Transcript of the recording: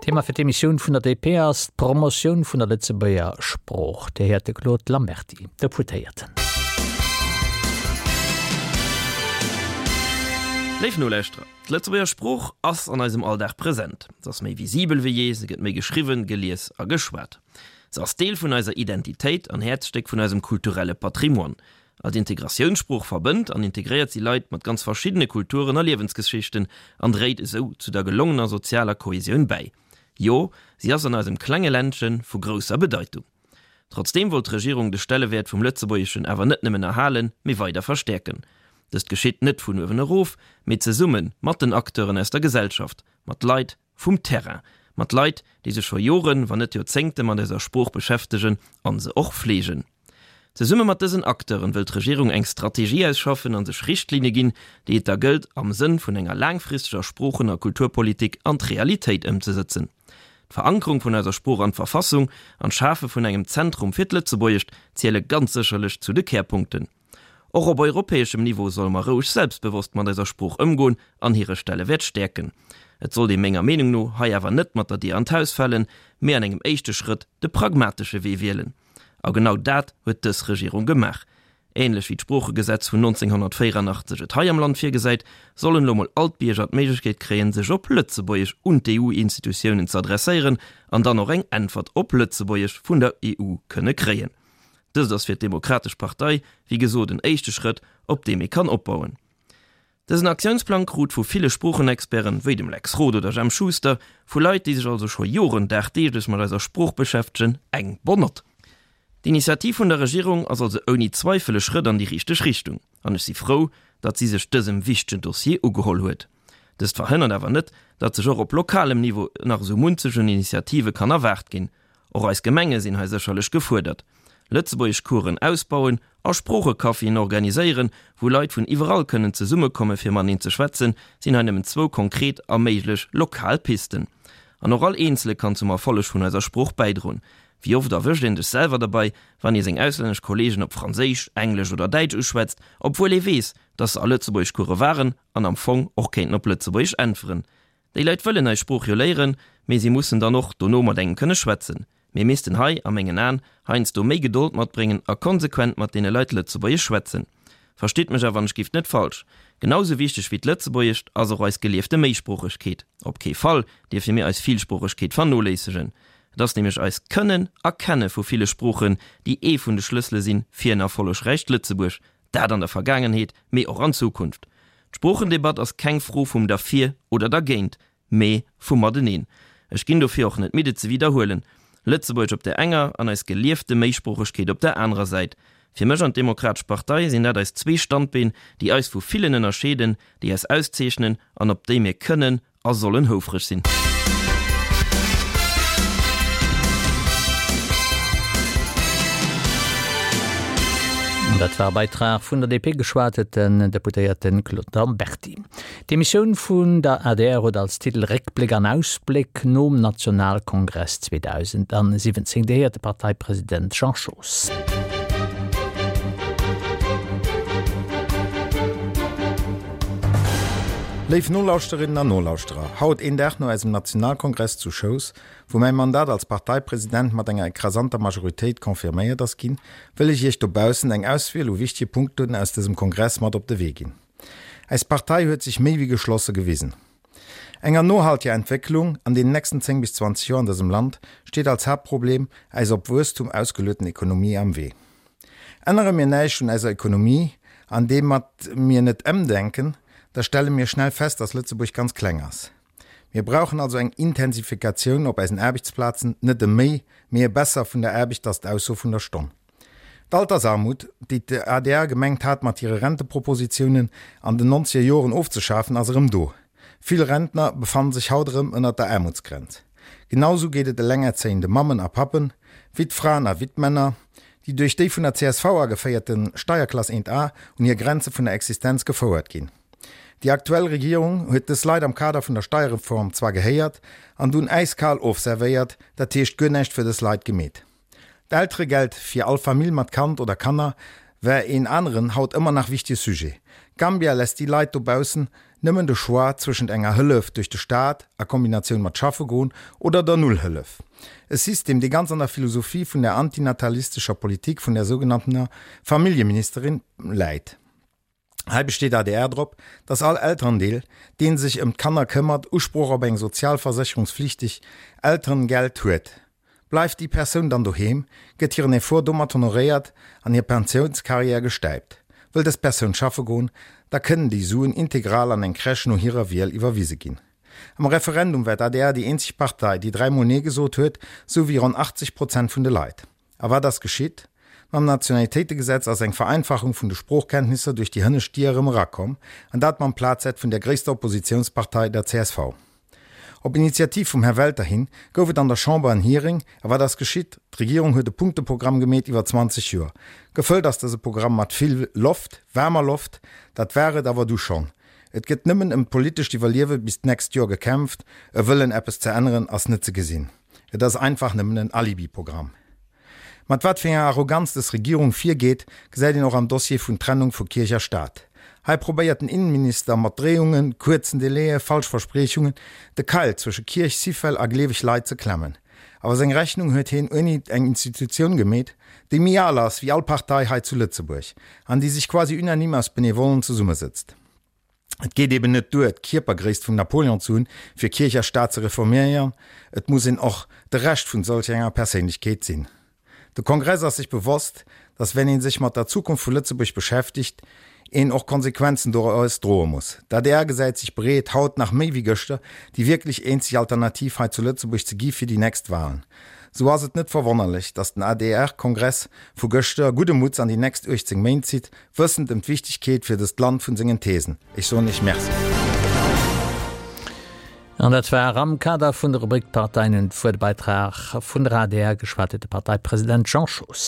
Thema fir d'Emissioun vun der DP ass d'Promotioun vun der Lëtzebuerger Sprooch. Dir héiert de Claude Lamberty, Deputéierten. Léif Nolauschterer, d'Lëtzebuerger Sprooch ass an eisem Alldag present. Se ass méi visibel wéi jee, se gëtt méi geschriwwen, gelies a geschwat. Se ass Deel vun eiser Identitéit an Häerzstéck vun eisem kulturelle Patrimoine. Als Integratiounssprooch verbënnt an integréiert si Leit mat ganz verschiddene Kulturen a Liewensgeschichten an dréit esou zu der gelongener sozialer Kohesioun bäi. Jo, si ass an eisem klenge Ländche vu grousser Bedeitung. Trotzdeem wollt d'Regierung de Stellewäert vum Lëtzebuergeschen awer net nëmmen erhalen, mee weider verstäerken. Dëst geschitt net vun uewen erof, mee zesumme mat den Acteuren aus der Gesellschaft, mat Leit vum Terrain, mat Leit, déi sech scho Joren, wann net Joerzéngte mat eiser Sprooch beschäftegen an se och fleegen. Zesumme mat dësen Acteuren wëll d'Regierung eng Strategie ausschaffen an sech Richtlinne ginn, déi et da gëllt am Sënn vun enger laangfristeger Sproochen a Kulturpolitik an d'Realitéit ëmzesëtzen. D'Verankerung vun eiser Sprooch an d'Verfassung an d'Schafe vun engem Zentrum fir d'Lëtzebuergescht ziele ganz sécherlech zu de Kärpunkten. Och op europäeschem Niveau solle mer roueg selbstbewosst mat eiser Sprooch ëmgoen an hire Stellewäert stäerken. Et sollt ee menger Meenung no hei awer net mat der Dier an d'Haus falen, mee an engem éischte Schrëtt de pragmatesche Wee wielen. A genau dat huet dës Regierung gemaach. Ähnlech wéi d'Sproochegesetz vun 1984 et hei am Land virgesäit, sollen elo mol all d'Bierger d'Méiglechkeet kréien, sech op Lëtzebuergesch un d'EU-Institutiounen ze adresséieren an dann och eng Äntwert op Lëtzebuergesch vun der EU kënne kréien. Dëst ass fir d'Demokratesch Partei, wéi gesot, en éischte Schrëtt, op deem ee kann opbauen. Dësen Aktiounsplang krut vu ville Sproochenexperten, wéi dem Lex Roth oder Jemp Schuster, vu Leit, déi sech also scho Joren dagdeeglech mat eiser Sprooch beschäftegen, eng bonne Note. D'Initiativ vun der Regierung ass also ouni Zweifel e Schrëtt an déi richteg Richtung, an ech si frou, datt si sech dësem wichtegen Dossier ugeholl huet. Dëst verhënnert awer net, datt sech och op lokalem Niveau nach esou munzeg un Initiative kann erwaart ginn. Och eis Gemenge sinn hei sécherlech gefuerdert. Lëtzebuergeschcoursen ausbauen a Sproochecaféen organiséieren, wou Leit vun iwwerall kënnen zesummekomme fir mateneen ze schwätzen, sinn hei nëmmen zwou konkret a méiglech lokal Pisten. An och all Eenzele kann zum Erfolleg vun eiser Sprooch bäidroen. Wéi oft erwëscht een dech selwer derbei, wann ee seng auslännesch Kollegen op Franséisch, Englesch oder Däitsch uschwätzt, obwuel ee weess, dass se a Lëtzebuergeschcourse waren an am Fong och kéinten op Lëtzebuergesch äntweren? Déi Leit wëllen eis Sprooch jo léieren, mee si mussen dann och dono mat engem kënne schwätzen. Mir missten hei, a mengen Aen, heiansdo méi Gedold matbréngen a konsequent mat deene Leit Lëtzebuergesch schwätzen. Verstitt mech awer wann ech gift net falsch, Genau sou wichteg wéi d'Lëtzebuergescht ass och eis geliefte Méisproochegkeet. Op kee Fall dierfe mir eis Villsproochegkeet vernoléissegen. Et ass nämlech eist Kënnen a Kenne vu ville Sproochen, déi ee vun de Schlëssele sinn fir en erfollegräicht Lëtzebuerg, Dat an der Vergaangenheet, mee och an Zukunft. D'Sproochendebatt ass keng Fro vum derfir oder dergéint, mee vum mateneen. Ech ginn dofir och net midd et ze widderhuelen, Lëtzebuergesch op där enger an eis geliefte Méisproochegkeet op där anerer Säit. Fir mech an d'Demokratesch Partei sinn dat eis zwee Standbeen, déi eis vu villen ënnerscheeden, déi eis auszeechnen an op déi mir kënnen a sollen houfreg sinn. Dat war e Beitrag vun der DP, geschwat huet den Deputéierte Claude Lamberty. D'Emissioun vun der adr huet als Titel Réckbléck an Ausbléck nom Nationalkongress 2017. Dir héiert de Parteipresident Jean Schoos. Léif Nolauschterinnen an Nolauschterer, haut, een Dag no eisem Nationalkongress zu Schous, wou mäi Mandat als Parteipresident mat enger ekrasanter Majoritéit confirméiert ass ginn, wëll ech Iech dobaussen eng Auswiel u wichtege Punkten aus dësem Kongress mat op de Wee ginn. Eis Partei huet sech méi wéi geschlosse gewisen. Enger nohalteger Entwécklung an deenen nächsten 10 bis 20 Joer an dësem Land steet als Haaptproblem eis op Wuesstum ausgelueten Ekonomie am Wee. Ännere mir näischt un eiser Ekonomie, an deem mat mir net emdenken, da stelle mir schnell fest, dass Lëtzebuerg ganz kleng ass. Mir brauchen also eng Intensifikatioun op eisen Aarbechtsplazen, net e méi, mee e besser vun der Aarbecht, ass d'Ausso vun der Stonn. D'Altersarmut, déi d'ADR gemengt hat mat hire Rentepropositiounen an den nonzeger Joren ofzeschafen, ass erëm do. Vill Rentner befannen sech haut erëm ënnert der Aarmutsgrenz. Genau sou geet et elengerzéiende Mammen a Pappen, Wittfraen a Wittmänner, déi duerch déi vun der csv ageféierte Steierklass 1 A un hir Grenze vun der Existenz gefouert ginn. Déi aktuell Regierung huet dës Leit am Kader vun der Steierreform zwar gehéiert an dunn äiskal ofservéiert, dat heescht guer näischt fir dës Leit gemeet. D'Elteregeld fir all Famill mat Kand oder Kanner war een aneren, haut ëmmer nach wichtege Sujet. Gambia lässt déi Leit dobaussen. nëmmen de Choix zwëschent enger Hëllef duerch de Staat a Kombinatioun mat schaffe goen oder der Nullhëllef. E System, dee ganz an der Philosophie vun der antinatalistescher Politik vun der sougenanntener Familljeministerin läit. Hei besteet adr drop, datt all Elterendeel, dee sech ëm d'Kanner këmmert, Usproch op eng sozialversécherungsflichteg Elterengeld huet. Bleift déi Persoun dann doheem, gëtt hiren Effort domat honoréiert an hir Pensiounscarrière gestäipt. Wëll dës Persoun schaffe goen, da kënnen déi Suen integral an eng Crèche no hirer Wiel iwwerwise ginn. Am Referendum war d'ADR déi eenzeg Partei, déi dräimol Nee gesot huet, sou wéi ronn 80 Prozent vun de Leit. A wat ass geschitt? Mam Nationalitéitegesetz ass eng Vereinfachung vun de Sproochkenntnisser duerch déi hënnescht Dier erëm erakomm, an dat mam Plazett vun der gréisster Oppositiounspartei, der csv. Op Initiativ vum Här Welter hin gouf et an der Chamber en Hearing. A wat ass geschitt? D'Regierung huet e Punkteprogramm gemeet iwwer 20 Joer. Gefëllt ass dëse Programm mat vill Loft, waarmer Loft. Dat war et awer du schonn. Et gëtt nëmmen ëm d'politescht Iwwerliewe bis d'nächst Joer gekämpft. E Wëllen eppes ze änneren ass net ze gesinn. Et ass einfach nëmmen en Alibi-Programm. Mat wat fir enger Arroganz dës Regierung virgeet, gesäit een och am Dossier vun Trennung vu Kierch a Staat. Hei probéiert den Innenminister mat Dréiungen, kuerzen Délaië, falsch Verspriechungen, de Keil zwësche Kierch, Syfel a gleeweg Leit ze klemmen. Awer seng Rechnung huet heen ouni eng Institutioun gemeet, déi méi al ass wéi all Partei hei zu Lëtzebuerg an déi sech quasi unanime aus Benevollen zesummesëtzt. Et geet eben net duer, d'Kierpergréisst vum Napoleon ze hunn, fir Kierch a Staat ze reforméieren, et muss een och de Rescht vun solch enger Perséinlechkeet sinn. De Kongress ass sech bewosst, datt wenn ee sech mat der Zukunft vu Lëtzebuerg beschäftegt, een och Konsequenzen doraus droe muss. D'adr gesäit sech bereet, haut nach méi wéi gëschter, déi wierklech eenzeg Alternativ hei zu Lëtzebuerg ze gi fir déi nächst Wahlen. Sou ass et net verwonnerlech, datt den ADR-Kongress vu gëschter gudde Mutts an déi nächst 18 Méint zitt, wëssend ëm d'Wichtegkeet fir dëst Land vun sengen Thesen. Ech soen Iech Merci. An dat war am Kader vun der Rubrik D'Parteien hunn d'Wuert, e Beitrag vun der adr, geschwat huet de Parteipresident Jean Schoos.